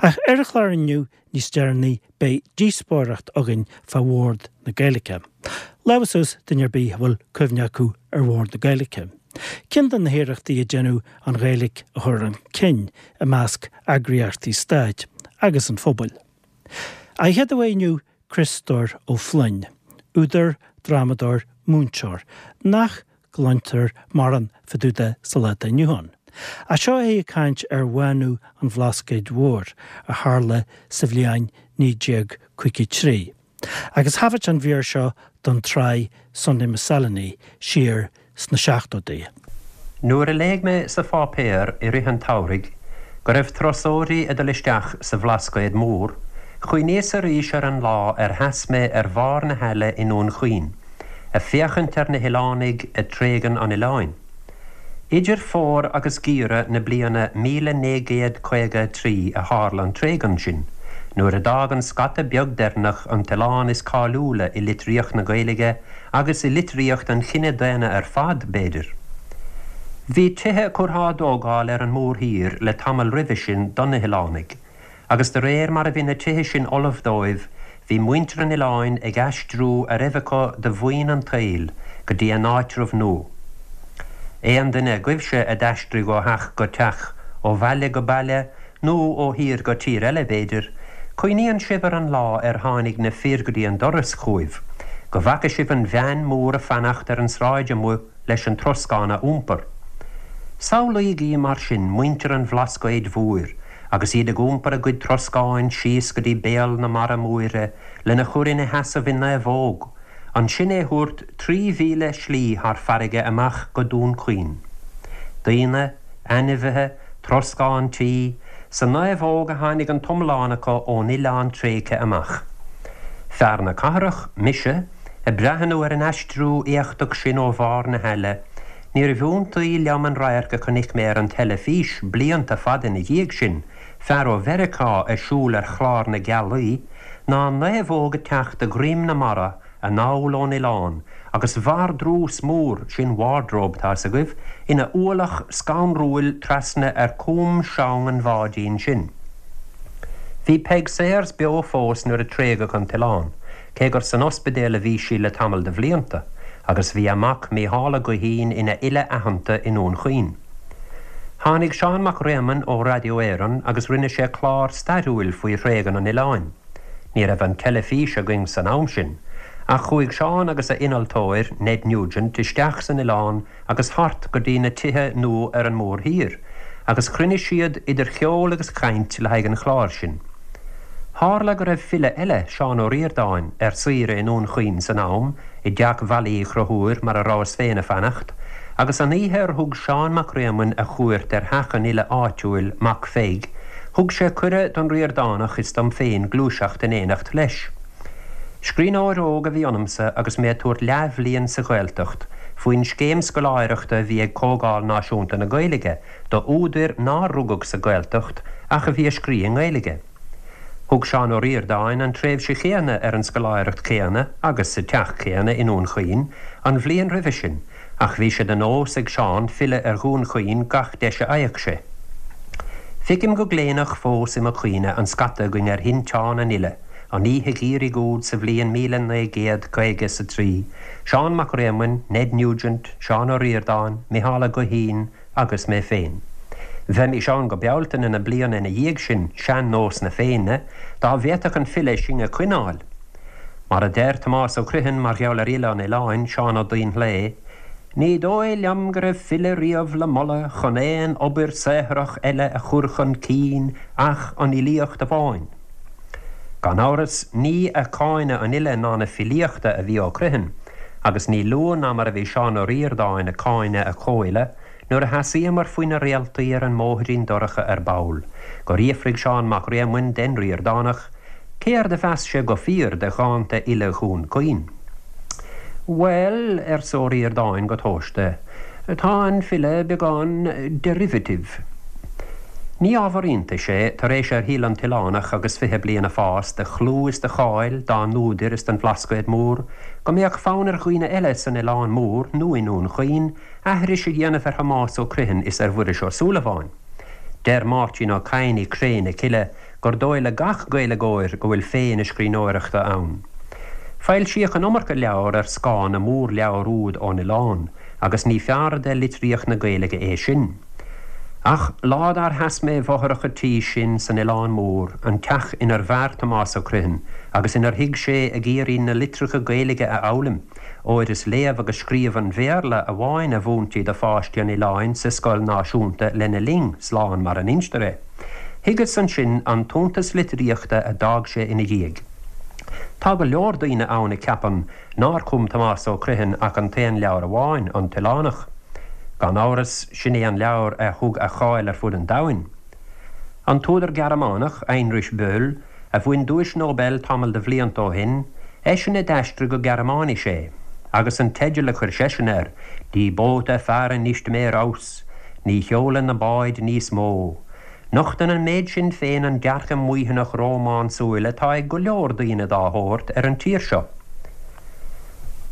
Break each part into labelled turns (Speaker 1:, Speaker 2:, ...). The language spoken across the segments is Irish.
Speaker 1: Ach ar an chlár inniu níos deireanaí beidh díospóireacht againn fá Bhord na Gaeilge. Lámha suas duine ar bith a bhfuil cuimhne acu ar Bhord na Gaeilge. Ceann de na hiarrachtaí a deineadh an Ghaeilge a chur chun cinn i measc eagraíochtaí stáit agus an phobail. An chéad aoi inniu Criostóir Ó Floinn, údar, drámadóir, múinteoir, nach gcluintear mórán fá dtaobh de sa lá atá inniu ann. Ach seo é ag caint ar bhánú an Bhlascaoid Mhóir a tharla sa bhliain 1953. Agus thaifead sé an mhír seo don tsraith Sunday Miscellany siar sna seachtóidí.
Speaker 2: Nuair a léigh mé sa pháipéar i rith an tsamhraidh go raibh turasóirí ag dul isteach sa Bhlascaod Mór, chuimhníos arís ar an lá ar sheas mé ar bharr na haille i nDún Chaoin, ag féachaint ar na hoileánaigh ag tréigean an oileáin. Idir fómhar agus geimhreadh na bliana 1953 a tharla an tréigean sin, nuair a d'fhág an scata beag deireanach an t-oileán is cáiliúla i litríocht na Gaeilge agus i litríocht an chine daonna ar fad, b'fhéidir. Bhí tithe curtha á dtógáil ar an mórthír le tamall roimhe sin do na hoileánaigh, agus de réir mar a bhí na tithe sin ullamh dóibh, bhí muintir an oileáin ag aistriú a raibh acu de mhaoin an tsaoil go dtí a n-áitreabh nua. Aon duine agaibhse a d'aistrigh ó theach go teach, ó bhaile go baile, nó ó thír go tír eile, b'fhéidir, cuimhníonn sibh ar an lá ar tháinig na fir go dtí an doras chugaibh, go bhfaca sibh an veain mhór ag fanacht ar an sráid amuigh leis an troscán a iompar. Samhlaígí mar sin muintir an Bhlascaoid Mhóir agus iad ag iompar a gcuid troscáin síos go dtí béal na mara móire lena chur ina sheasamh i naomhóg, ansin é thabhairt 3,000 slí thar farraige amach go Dún Chaoin. Daoine, ainmhithe, troscán tí, sa naomhóg a tháinig an t-iomlán acu ón oileán tréigthe amach. Fear na cathrach, mise, ag breathnú ar an aistriú éachtach sin ó bharr na haille, níorbh iontaí liom an radharc a chonaic mé ar an teilifís blianta fada ina dhiaidh sin, fear ó Mheiriceá ag siúl ar chlár na gealaí, ná naomhóg ag teacht de dhroim na mara anall ón oileán agus vardrús mór, sin wardrobe, tá's agaibh, ina ualach scanrúil trasna ar com seang an bháidín sin. Bhí Peig Sayers beo fós nuair a tréigeadh an t-oileán, cé gur san ospidéal a bhí sí le tamall de bhlianta, agus bhí a mac Mícheál Ó Guithín ina fhile aitheanta i nDún Chaoin. Tháinig Seán Mac Réamoinn ó Radio Éireann agus rinne sé clár stairiúil faoi thréigean an oileáin. Ní raibh an teilifís againn san am sin, ach chuaigh Seán agus a innealtóir, Ned Nugent, isteach san oileán agus thart go dtí na tithe nua ar an mórthír, agus chruinnigh siad idir cheol agus chaint le haghaidh an chláir sin. Tharla go raibh file eile, Seán Ó Ríordáin, ar saoire i nDún Chaoin san am, i dteach Mhailí Uí Chonchúir mar a rabhas féin ag fanacht, agus an oíche ar thug Seán Mac Réamoinn a chuairt ar theach an fhile áitiúil, Mac Pheig, thug sé cuireadh don Ríordánach is dom féin gluaiseacht in éineacht leis. Scríbhneoir óg a bhí ionamsa agus mé ag tabhairt leathbhliain sa Ghaeltacht faoin scéim scoláireachta a bhí ag Comhdháil Náisiúnta na Gaeilge do údair nár rugadh sa Ghaeltacht ach a bhí ag scrí i nGaeilge. Thug Seán Ó Ríordáin an tréimhse chéanna ar an scoláireacht chéanna agus sa teach céanna i nDún Chaoin an bhliain roimhe sin ach bhí sé de nós ag Seán filleadh ar Dhún Chaoin gach deis a fhaigheadh sé. Feicim go gléineach fós i mo chuimhne an scata againn ar thinteán an fhile an oíche gheimhridh úd sa bhliain 1950 is a 3, Seán Mac Réamoinn, Ned Nugent, Seán Ó Ríordáin, Micheál Ó Guithín, agus mé féin. Bheimis ann go Bealtaine na bliana ina dhiaidh sin, sean-nós na Féinne, dá bhféadfadh an file sinn a choinneáil. Mar a deir Tomás Ó Criomhthain mar gheall ar fhile an oileáin, Seán Ó Duinnshléibhe, Ní dóigh liom go raibh file riamh le moladh chun aon obair saothrach eile a chur chun cinn ach an fhilíocht amháin. Gan amhras, ní ag cáineadh an fhile ná na filíochta a bhí Ó Criomhthain, Agus ní lú ná mar a bhí Seán Ó Ríordáin ag cáineadh a chomhfhile nuair a sheasaíomar faoi na réaltaí ar an mbóithrín dorcha ar ball, gur fhiafraigh Seán Mac Réamoinn den Ríordánach céard a mheas sé go fíor de dhánta fhile Dhún Chaoin. Bhuel, arsa Ó Ríordáin go tomhaiste, tá an file beagán derivative. Ní ábhar iontais é, tar éis ar shíl an t-oileánach agus 20 bliain a fás de chlú is de cháil dá n-údair is den Bhlascaod Mór, go mbeadh fonn ar dhaoine eile san Oileán Mór nó i nDún Chaoin aithris a dhéanamh ar Thomás Ó Criomhthain is ar Mhuiris Ó Súilleabháin. Deir Máirtín Ó Cadhain i Cré na Cille gur dóigh le gach Gaeilgeoir go bhfuil féith na scríbhneoireachta ann. Foilsíodh an iomarca leabhar ar scáth na mórleabhar úd ón oileán agus ní fearr de litríocht na Gaeilge é sin. Ach lá dár sheas mé i bhfothrach an tí sin san Oileán Mór, an teach inar mhair Tomás Ó Criomhthain agus inar shuigh sé ag iarraidh na litreacha Gaeilge a fhoghlaim, óir is léamh agus scríobh an Bhéarla amháin a mhúintí do pháistí an oileáin sa scoil náisiúnta lena linn, slán mar a n-instear é. Thuigeas ansin an t-iontas litríochta a d'fhág sé ina dhiaidh. Tá go leor daoine ann a cheapann nár chum Tomás Ó Criomhthain ach an t-aon leabhar amháin, An tOileánach. Gan amhras, sin é an leabhar a thug a cháil ar fud an domhain. An t-údar Gearmánach, Heinrich Böll, a bhain Duais Nobel tamall de bhlianta ó shin, eisean a d'aistrigh go Gearmáinis é, agus an teideal a chuir seisean air, Die Boote fahren nicht mehr aus, Ní sheolann na báid níos mó. Nochtann an méid sin féin an dearcadh maoithneach rómánsúil atá ag go leor daoine dá shórt ar an tír seo.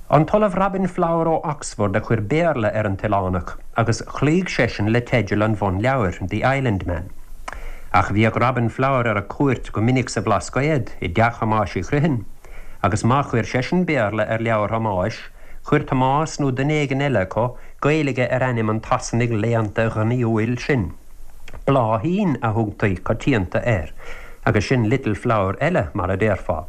Speaker 2: An tOllamh Robin Flower ó Oxford a chuir Béarla ar An tOileánach agus chloígh seisean le teideal an bhunleabhair, The Islandman. Ach bhíodh Robin Flower ar cuairt go minic sa Bhlascaod, i dteach Thomáis Uí Chriomhthain, agus má chuir seisean Béarla ar leabhar Thomáis, chuir Tomás nó duine éigin eile acu Gaeilge ar ainm an tSasanaigh léannta ghnaíúil sin. Bláithín a thugtaí coitianta air, agus sin Little Flower eile, mar a déarfá.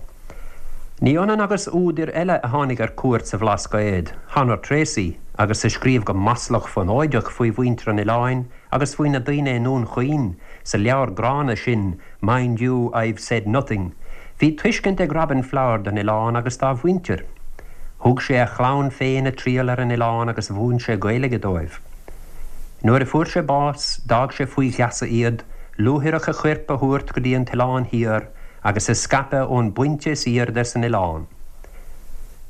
Speaker 2: Ní ionann agus údair eile a tháinig ar cuairt sa Bhlascaod, Honor Tracey, agus a scríobh go maslach fonóideach faoi mhuintir an oileáin agus faoi na daoine i nDún Chaoin sa leabhar gránna sin Mind You, I've Said Nothing, bhí tuiscint ag Robin Flower don oileán agus dá mhuintir. Thug sé a chlann féin a triall ar an oileán agus mhúin sé Gaeilge dóibh. Nuair a fuair sé bás, d'fhág sé faoi gheasa iad, luaithreach a choirp a thabhairt go dtí an tOileán Thiar, agus a scaipeadh ón bpointe is aoirde san oileán.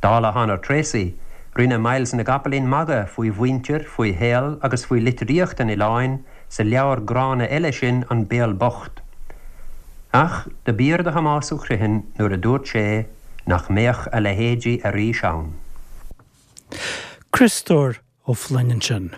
Speaker 2: Dála Honor Tracey, rinne Myles na gCopaleen magadh faoi mhuintir, faoi shaol agus faoi litríocht an oileáin sa leabhar gránna eile sin An Béal Bocht. Ach do b'fhíor do Thomás Ó Criomhthain nuair a dúirt sé nach mbeadh a leithéidí arís ann.
Speaker 1: Criostóir Ó Floinn ansin.